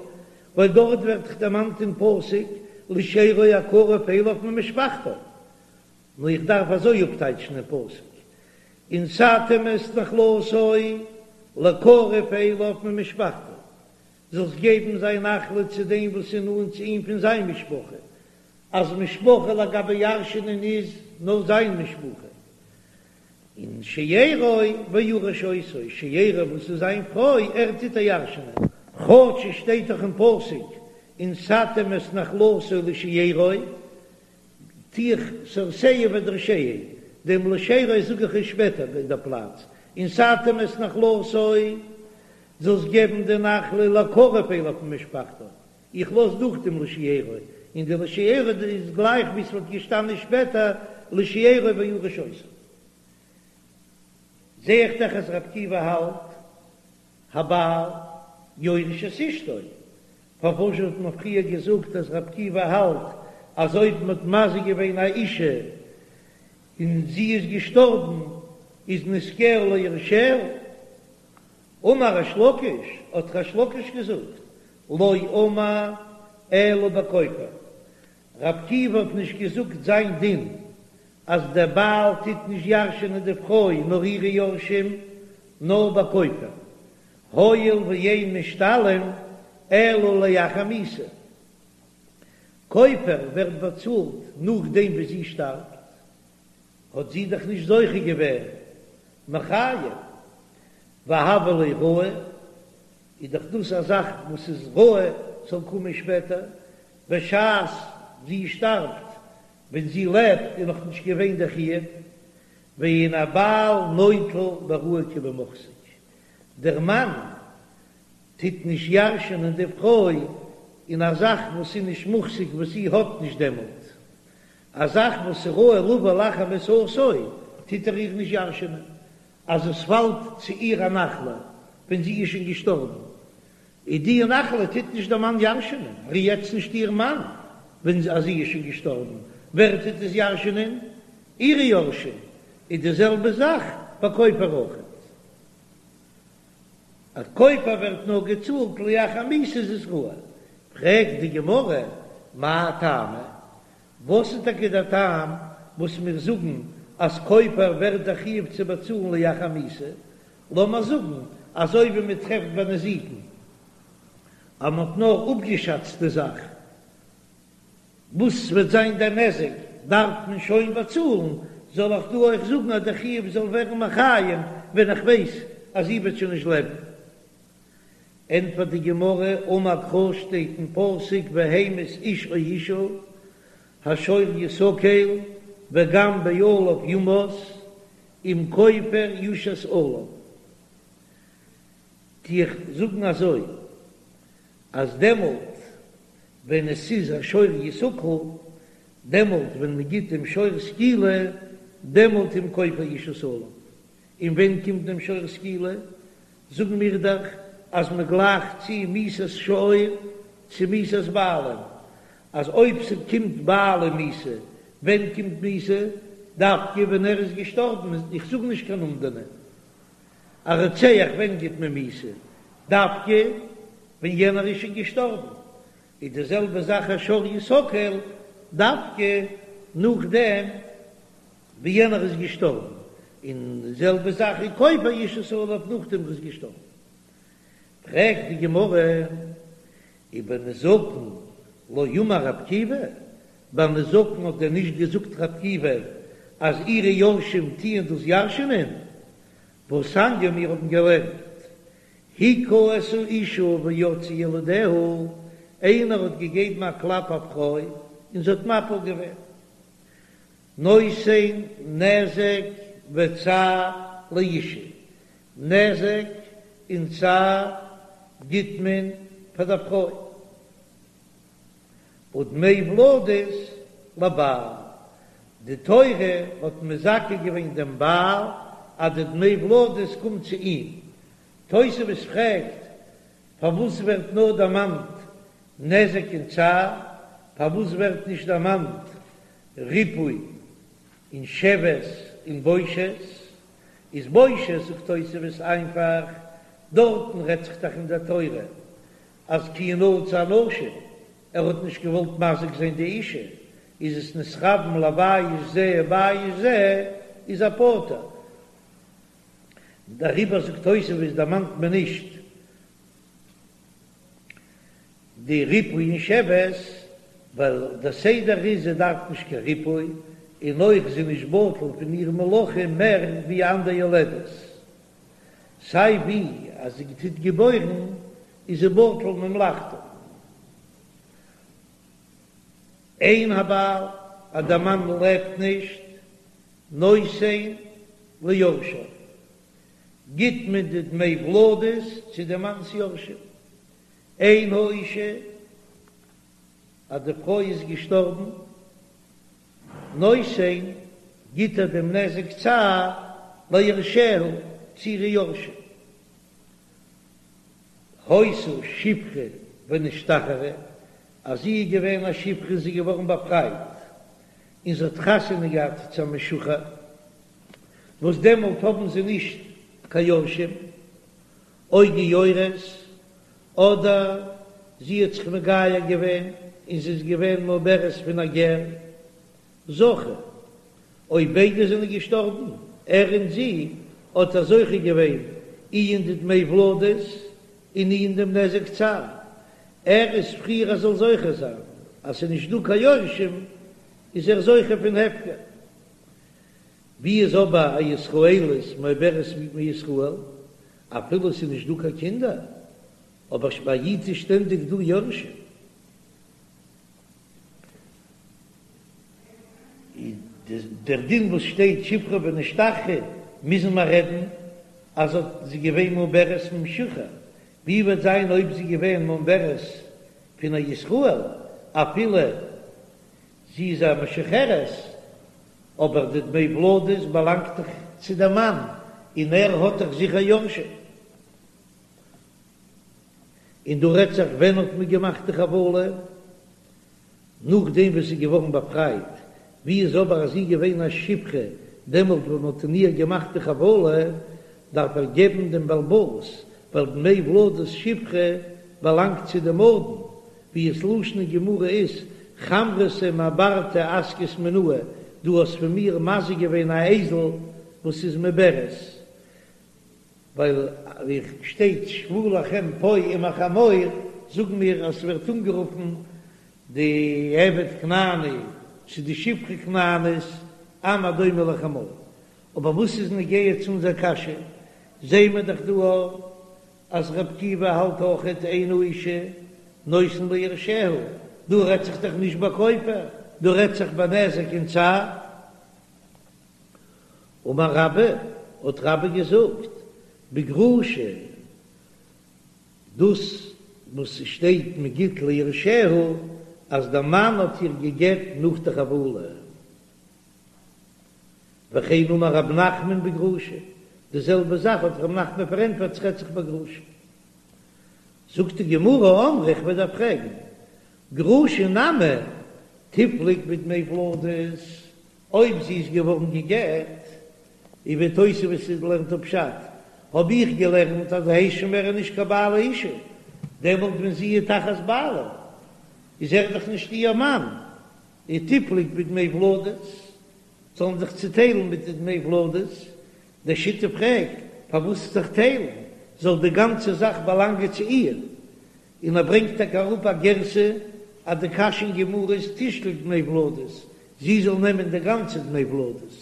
ווייל דארט ווערט דאך דערמאנט אין פסוק לשארו הקרוב אליו ממשפחתו, נאר איך דארף אזוי אפטייטשן אין פסוק ונתתם את נחלתו לקרוב אליו ממשפחתו, זאלסט געבן זיין נחלה צו דעם וואס איז נאנט צו אים פון זיין משפחה, אז משפחה לגבי ירש'נען איז נאר זיין משפחה, און שארו וירש אותה, שארו וואס איז זיין פרוי, ער טוט איר ירש'נען. כאטש עס שטייט דאך אין פסוק ונתתם את נחלתו לשארו, טו איך סרסהו ואדרשהו, דעם לשארו זאג איך עס שפעטער אין דער פלאץ, ונתתם את נחלתו, זאלסט געבן די נחלה לקרוב אליו ממשפחתו, איך לאז דורך דעם לשארו, און די לשארו איז גלייך ווי ס'וואלט געשטאנען שפעטער לשארו וירש אותה. זע איך דאך אז ר' עקיבא האלט הבעל יורש את אשתו, פארוואס האט מען פריער געזאגט אז ר' עקיבא האלט אז אויב מ'האט מזיק געווען א אישה און זי איז געשטארבן איז נזקיה ליורשיה? אמר ריש לקיש, האט ריש לקיש געזאגט, לא אמר אלא בכופר, ר' עקיבא האט נישט געזאגט זיין דין אז דער בעל טוט נישט ירש'ענען די פרוי נאר אירע יורשים, נאר בכופר, הואיל ואין משתלם אלא לאחר מיתה, כופר ווערט באצאלט נאכדעם ווי זי שטארבט. האט זי דאך נישט זוכה געווען מיחייב, והוה ליה ראוי, איז דאך דאס א זאך וואס איז ראוי ס'זאל קומען שפעטער, בשעת זי שטארבט, ווען זי לעבט איז נאך נישט געווען דער חיוב, ואין הבעל נוטל בראוי כבמוחזק, דער מאן טוט נישט ירש'ענען די פרוי אין א זאך וואס איז נישט מוחזק וואס זי האט נישט דעמאלט, א זאך וואס איז ראוי לבא לאחר מיתתו טוט ער איר נישט ירש'ענען, אז עס פאלט צו איר א נחלה ווען זי איז שוין געשטארבן, איז די נחלה טוט נישט דער מאן ירש'ענען, ער איז יעצט נישט איר מאן ווען אז זי איז שוין געשטארבן, ווער טוט עס ירש'ענען? אירע יורשים, איז די זעלבע זאך ביי כופר אויכעט. אז כופר ווערט נאר געצאלט לאחר מיתה איז עס ראוי, פרעגט די גמרא, מאי טעמא? וואס איז טאקע דער טעם וואס מיר זאגן אז כופר ווערט דער חיוב צו באצאלן לאחר מיתה? לאמיר זאגן אזוי ווי מען טרעפט ביי נזיקין אז מען האט נאר אפגעשאצט די זאך, וואס וועט זיין דער נזק דארף מען שוין באצאלן, זאל איך דא אויך זאגן אז דער חיוב זאל ווערן מחיים ווען איך ווייס אז זי וועט שוין נישט לעבן? ענטפערט די גמרא, אמר קרא שטייט אין פסוק והמית איש או אשה השור יסקל וגם בעליו יומת אם כופר יושת עליו, טו איך זאגן אזוי אז דעמאלט ווען עס איז א שור יסקל, דעמאלט ווען מען גיט דעם שור סקילה, דעמאלט אם כופר יושת עליו. און ווען קומט דעם שור סקילה? זאגן מיר דאך אז מען גלייכט צו מיתת שור צו מיתת בעלים, אז אויב ס'קומט בעלים מיתה, ווען קומט מיתה? דווקא ווען ער איז געשטארבן, איך זאג נישט קיין אומדנא. א רוצח ווען גיט מען מיתה? דווקא ווען יענער איז שוין געשטארבן. איז די זעלבע זאך א שור יסקל, דווקא נאכדעם ווי יענער איז געשטארבן, און די זעלבע זאך איז כופר יושת עליו נאכדעם ער איז געשטארבן. פרעגט די גמרא ובנזקין לא אמר רבי עקיבא, ביי נזקין האט דען נישט געזאגט רבי עקיבא אז אירע יורשים טוען דאס ירש'נען? והתניא מיר האבן געלערנט. הכה את האשה ויצאו ילדיה, איינער האט געגעבן א קלאפ א פרוי און זי האט מפיל געווען, נותן נזק וצער לאשה, נזק און צער גיט מען פאר דער פרוי, ודמי ולדות לבעל, די תורה האט מזכה געווען דעם בעל אז די דמי ולדות קומט צו אים, תוספות פרעגט פארוואס ווערט נאר דערמאנט נזק און צער, פארוואס ווערט נישט דערמאנט ריפוי און שבת און בושת? איז בושת זאגט תוספות איינפאך, דארטן רעדט זיך דאך אין דער תורה אז כי ינצו אנשים, ער האט נישט געוואלט מזיק זיין די אישה, איז עס נתכוון לבייש זה ובייש זה, איז ער פטור. דעריבער זאגט תוספות דערמאנט מען נישט די ריפוי און שבת, ווייל דער סדר איז זי דארף נישט קיין ריפוי, און אויך זי נישט בטל פון איר מלאכה מער ווי אנדער יולדת, סיי ווי אז זי טוט געבוירן איז זי בטל ממלאכתה. אין הבעל, אז דער מאן לעבט נישט, נותן ליורשיו, גיט מען די דמי ולדות צו די מאנ'ס יורשים. אין האישה, אז די פרוי איז געשטארבן, נותן, גיט ער דעם נזק צער ליורשיה, צו אירע יורשים. היתה שפחה ונשתחררה, אז זי איז געווען א שפחה און זי איז געווארן באפרייט, און זי האט חתונה געהאט צו א משוחרר, וואס דעמאלט האבן זיי נישט קיין יורשים, או גיורת, אדער זי האט זיך מגייר געווען און זי איז געווען מעוברת פון א גר, זכה, אויב ביידע זענען געשטארבן, ער און זי, האט ער זוכה געווען אי אין די דמי ולדות און אי אין דעם נזק צער, ער איז פריער ער זאל זוכה זיין, אז ס'איז נישט דא קיין יורשים איז ער זוכה פון הפקר. ווי איז אבער א ישראלית מעוברת מישראל, אפילו ס'איז נישט דא קיין קינדער, אבער ביי א איד איז שטענדיג דא יורשים. דער דין וואס שטייט שפחה ונשתחררה מוזן מיר רעדן אז האט זי געווען מעוברת ממשוחרר, ווי וועט זיין אויב זי געווען מעוברת פון א ישראל אפילו זי איז א משוחררת, אבער די דמי ולדות באלאנגט דאך צו דעם מאן און ער האט דאך זיכער יורשים. און דא רעדט זיך ווען האט מען געמאכט די חבלה? נאכדעם וואס זי איז געווארן באפרייט, ווי איז אבער אז זי איז געווען א שפחה דעמאלט ווען מען האט אין איר געמאכט די חבלה, דארף ער געבן דעם בעל הבית, ווייל דמי ולדות שפחה באלאנגט צו דעם אדון, ווי עס לשון אין גמרא איז, חמרתא מעברתא אזקת מינאי, דו האסט פון מיר מזיק געווען א אייזל וואס איז מעוברת, ווייל ווי שטייט שבו לכם פה עם החמור, זאגן מיר אז ס'ווערט אנגערופן די עבד כנעני צו די שפחה כנענית עם הדומה לחמור. אבער וואס איז נוגע צו אונזער קשיא, זעהן מיר דאך דא אז ר' עקיבא האלט אויכעט אין האשה נותן ליורשיה, דא רעדט זיך דאך נישט ביי כופר, דא רעדט זיך ביי נזק און צער. אמר רבה, האט רבה געזאגט, בגרושה, דאס וואס ס'שטייט מ'גיט ליורשיה, אז דער מאן האט איר געגעט נאך די חבלה. וכן אמר רב נחמן בגרושה, די זעלבע זאך האט רב נחמן פארענטפערט ס'רעדט זיך בגרושה. זאגט די גמרא, אמרי, איך וועל דיר פרעגן, גרושה נמי תיפלוג בדמי ולדות, אויב זי איז געווארן גע'גט, און ווי תוספות לערנט אפ פשט, האב איך געלערנט אז הייסט שוין מער נישט קיין בעל האישה, דעמאלט ווען זי איז תחת בעלה איז ער דאך נישט איר מאן, און תיפלוג בדמי ולדות, זאלן זיך צוטיילן מיט די דמי ולדות, די שיטה פרעגט פארוואס זיך טיילן, זאל די גאנצע זאך באלאנגען צו איר, און ער ברענגט טאקע אראפ א גירסא אז די קשיא אין גמרא איז תשקול דמי ולדות, זי זאל נעמען די גאנצע דמי ולדות,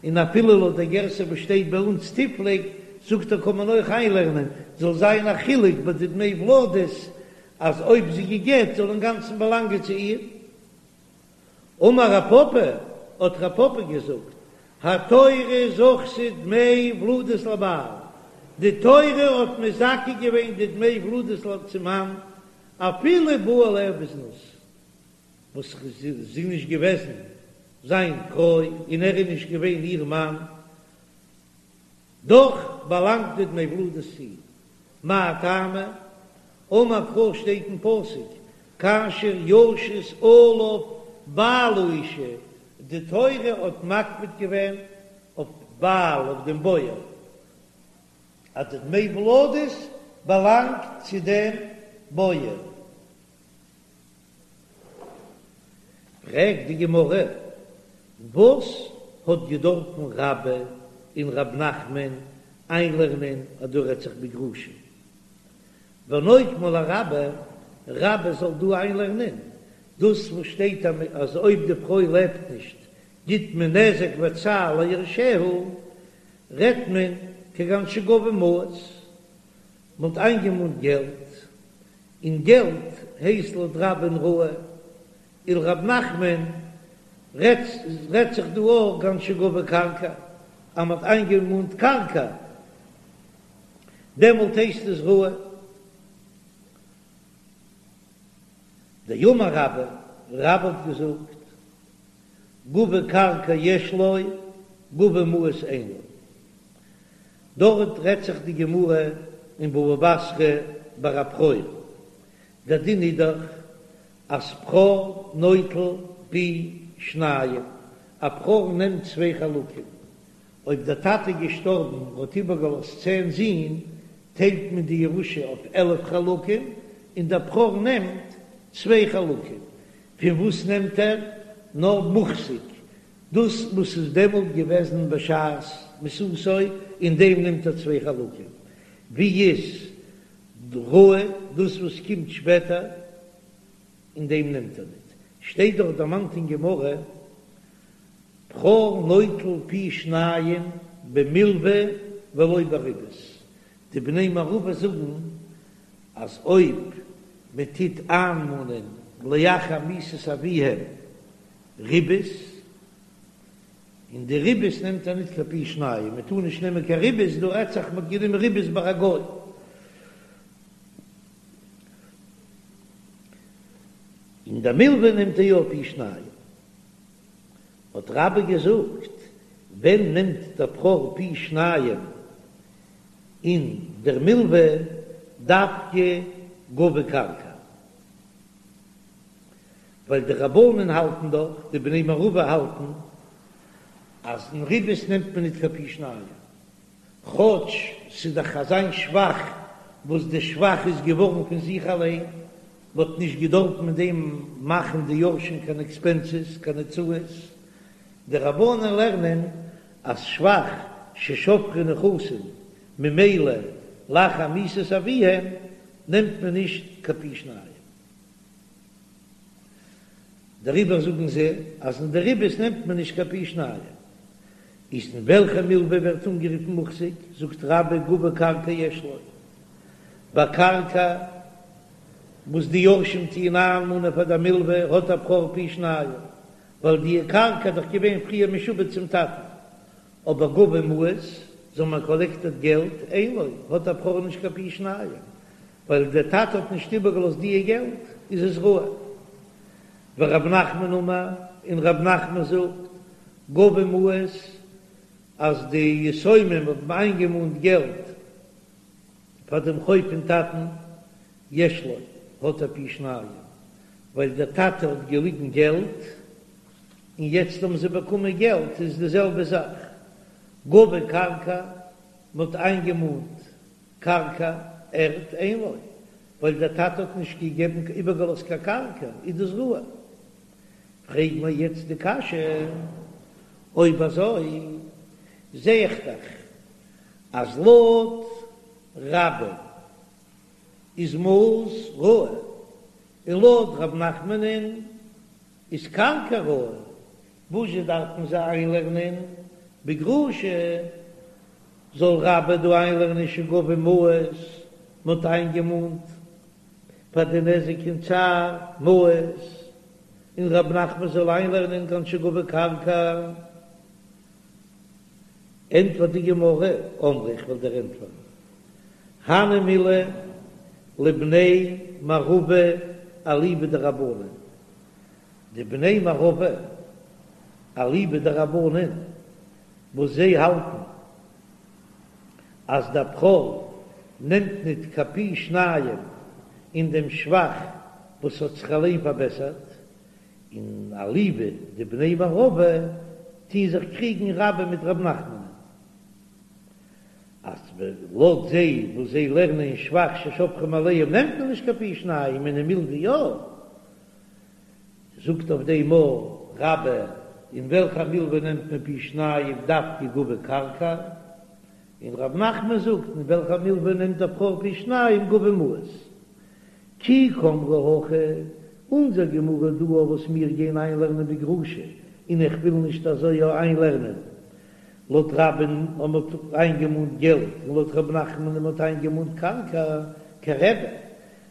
און אפילו לויט די גירסא וואס שטייט ביי אונז תיפלוג. זאגט ער קען מען אויך איינלערנען, זאל זיין א חילוק ביי די דמי ולדות, אז אויב זי גע'גט זאל אינגאנצן באלאנגען צו איר. אמר רב פפא, האט רב פפא געזאגט, התורה זכתה דמי ולדות לבעל, די תורה האט מזכה געווען די דמי ולדות צום מאן, אפילו בא עליה בזנות, וואס זי איז נישט געוועזן זיין פרוי און ער איז נישט געווען איר מאן, דאך באלאנגט די דמי ולדות צו אים. מאי טעמא? אמר קרא שטייט אין פסוק כאשר ישית עליו בעל האשה, די תורה האט מקפיד געווען אויף בעל אויף דעם בועל אז די דמי ולדות באלאנגט צו דעם בועל. פרעגט די גמרא, וואס האט געדארפן רבה און רב נחמן איינלערנען אז דא רעדט זיך בגרושה? ונוקמה לרבה, רבה זאל דא איינלערנען דאס וואס שטייט אז אויב די פרוי לעבט נישט גיט מען נזק וצער ליורשיה, רעדט מען כגון שגבו מעות, מען האט איינגעמאנט געלט, און געלט הייסט לויט רבה'ן ראוי, ולרב נחמן רעדט זיך דא אויך כגון שגבו קרקע, אז מען האט איינגעמאנט קרקע דעמאלט הייסט עס ראוי. דאמר רבה, רבה האט געזאגט, גבו קרקע יש לו, גבו מעות אין לו. דארט רעדט זיך די גמרא אין בבא בתרא ביי א בכור, דער דין איז דאך אז בכור נוטל פי שניים, א בכור נעמט צוויי חלקים, אויב דער טאטע איז געשטארבן און האט איבערגעלאזט צען זין, טיילט מען די ירושה אויף 11 חלקים, און דער בכור נעמט צוויי חלקים. פון וואס נעמט ער? נאר מוחזק, דאס וואס איז דעמאלט געוועזן בשעת מיתתו, אין דעם נעמט ער צוויי חלקים. ווי איז ראוי דאס וואס קומט שפעטער, אין דעם נעמט ער ניט. שטייט דאך דערמאנט אין גמרא, בכור נוטל פי שניים במלוה ולא בריבית. די בני מערבא זאגן אז אויב מען טוט איינמאנען לאחר מיתת אביהם ריבית, און די ריבית נעמט ער ניט קיין פי שניים, מען טאר נישט נעמען קיין ריבית, דא רעדט זיך מען האט גענומען ריבית ביי א גוי. אין די מלוה נעמט ער יא פי שניים. האט רבה געזאגט, ווען נעמט דער בכור פי שניים אין דער מלוה דווקא גבו קרקע? ווייל די רבנן האלטן דאך, די בני מערבא האלטן, אז אין ריבית נעמט מען ניט קיין פי שניים, כאטש ס'איז דאך אזיין שבח וואס די שבח איז געווארן פון זיך אליין, מ'האט נישט געדארפט מיט דעם מאכן די יורשים קיין עקספענסעס, קיין הוצאות. די רבנן לערנען אז שבח ששבחו נכסים ממילא לאחר מיתת אביהם נעמט מען נישט קיין פי שניים. דעריבער זאגן זיי אז אין די ריבית נעמט מען נישט קיין פי שניים. איז אין וועלכע מלוה ווערט אנגערופן מוחזק? זאגט רבה גבו קרקע יש לו. ביי קרקע וואס די יורשים טוען איינמאנען פאר די מלוה האט א בכור פי שניים, ווייל די קרקע איז דאך געווען פריער משועבד צום טאטן. אבער גבו מעות, זיי האבן קאלעקטעד געלט, אין לו, האט א בכור נישט קיין פי שניים, ווייל דער טאטע האט נישט איבערגעלאזט דיע געלט, איז עס ראוי. ורב נחמן אמר, און רב נחמן זאגט, גבו מעות, אז די יתומים האבן איינגעמאנט געלט פאר דעם חוב פון טאטן, יש לו, האט ער פי שניים, ווייל דער טאטע האט געליגן געלט, און יעצט האבן זיי באקומען געלט, איז די זעלבע זאך. גבו קרקע, מען האט איינגעמאנט קרקע, ערד, אין לו, ווייל דער טאטע האט נישט געגעבן איבערגעלאזט קיין קרקע, איז דאס ראוי. פרעג מיר יעצט די קשיא, אויב אזוי זע איך דאך אז לויט רבה איז מעות ראוי, און לויט רב נחמנ'ן איז קרקע ראוי, וואזשע דארפן זיי איינלערנען בגרושה? זאל רבה דא איינלערנען שגבו מעות, מ'האט איינגעמאנט פאר די נזק און צער מעות, און רב נחמן זאל איינלערנען כגון שגבו קרקע. ענטפערט די גמרא, אמרי איך וועל דיר ענטפערן, הני מילי לבני מערבא אליבא דרבנן, די בני מערבא אליבא דרבנן וואס זיי האלטן אז דער בכור נעמט ניט קיין פי שניים אין דעם שבח וואס האט זיך אליין פארבעסערט, און אליבא דבני מערבא טוהן זיך קריגן רבה מיט רב נחמנ'ן אז לויט זיי וואס זיי לערנען אין שבח ששבחו מאליהם נעמט מען נישט קיין פי שניים און אין מלוה יא, זאגט אויף דעם רבה אין וועלכע מלוה נעמט מען פי שניים דווקא גבו קרקע, און רב נחמן זאגט אין וועלכע מלוה נעמט דער בכור פי שניים גבו מעות. כי קאמרי הכא, אונזער גמרא דא וואס מיר גייען איינלערנען בגרושה, און איך וויל נישט אזוי יא איינלערנען, לויט רבה'ן אז מ'האט איינגעמאנט געלט און לויט ר' נחמנ'ן אז מ'האט איינגעמאנט קרקע, כרבי,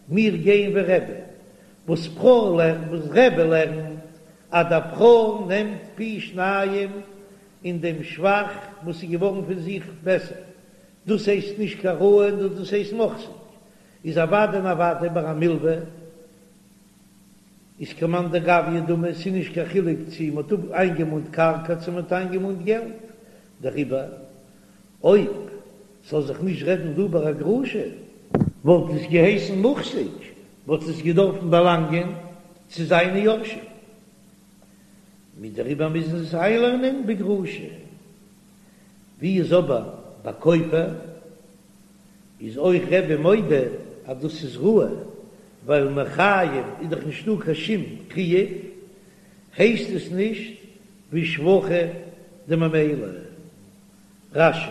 מיר גייען ווי רבי, וואס בכור לערנט, וואס רבי לערנט אז דער בכור נעמט פי שניים אין דעם שבח וואס איז געווארן פון זיך בעסער, דאס הייסט נישט קיין ראוי נאר דאס הייסט מוחזק, איז אוודאי און אוודאי ביי א מלווה איז כמאן דגביא דמי, ס'איז נישט קיין חילוק צו מ'האט איינגעמאנט קרקע צו מ'האט איינגעמאנט געלט, דעריבער אויב ס'זאל זיך נישט רעדן דא ביי א גרושה, וואלט עס געהייסן מוחזק, וואלט עס געדארפן באלאנגען צו זיינע יורשים, מיט דעריבער מוזן זיי עס איינלערנען בגרושה, ווי איז אבער ביי כופר? איז אויך רבי מודה אז דאס איז ראוי, ווייל מחיים איז דאך נישטא קיין שום חיוב, הייסט עס נישט ווי שבחא דממילא. רש"י.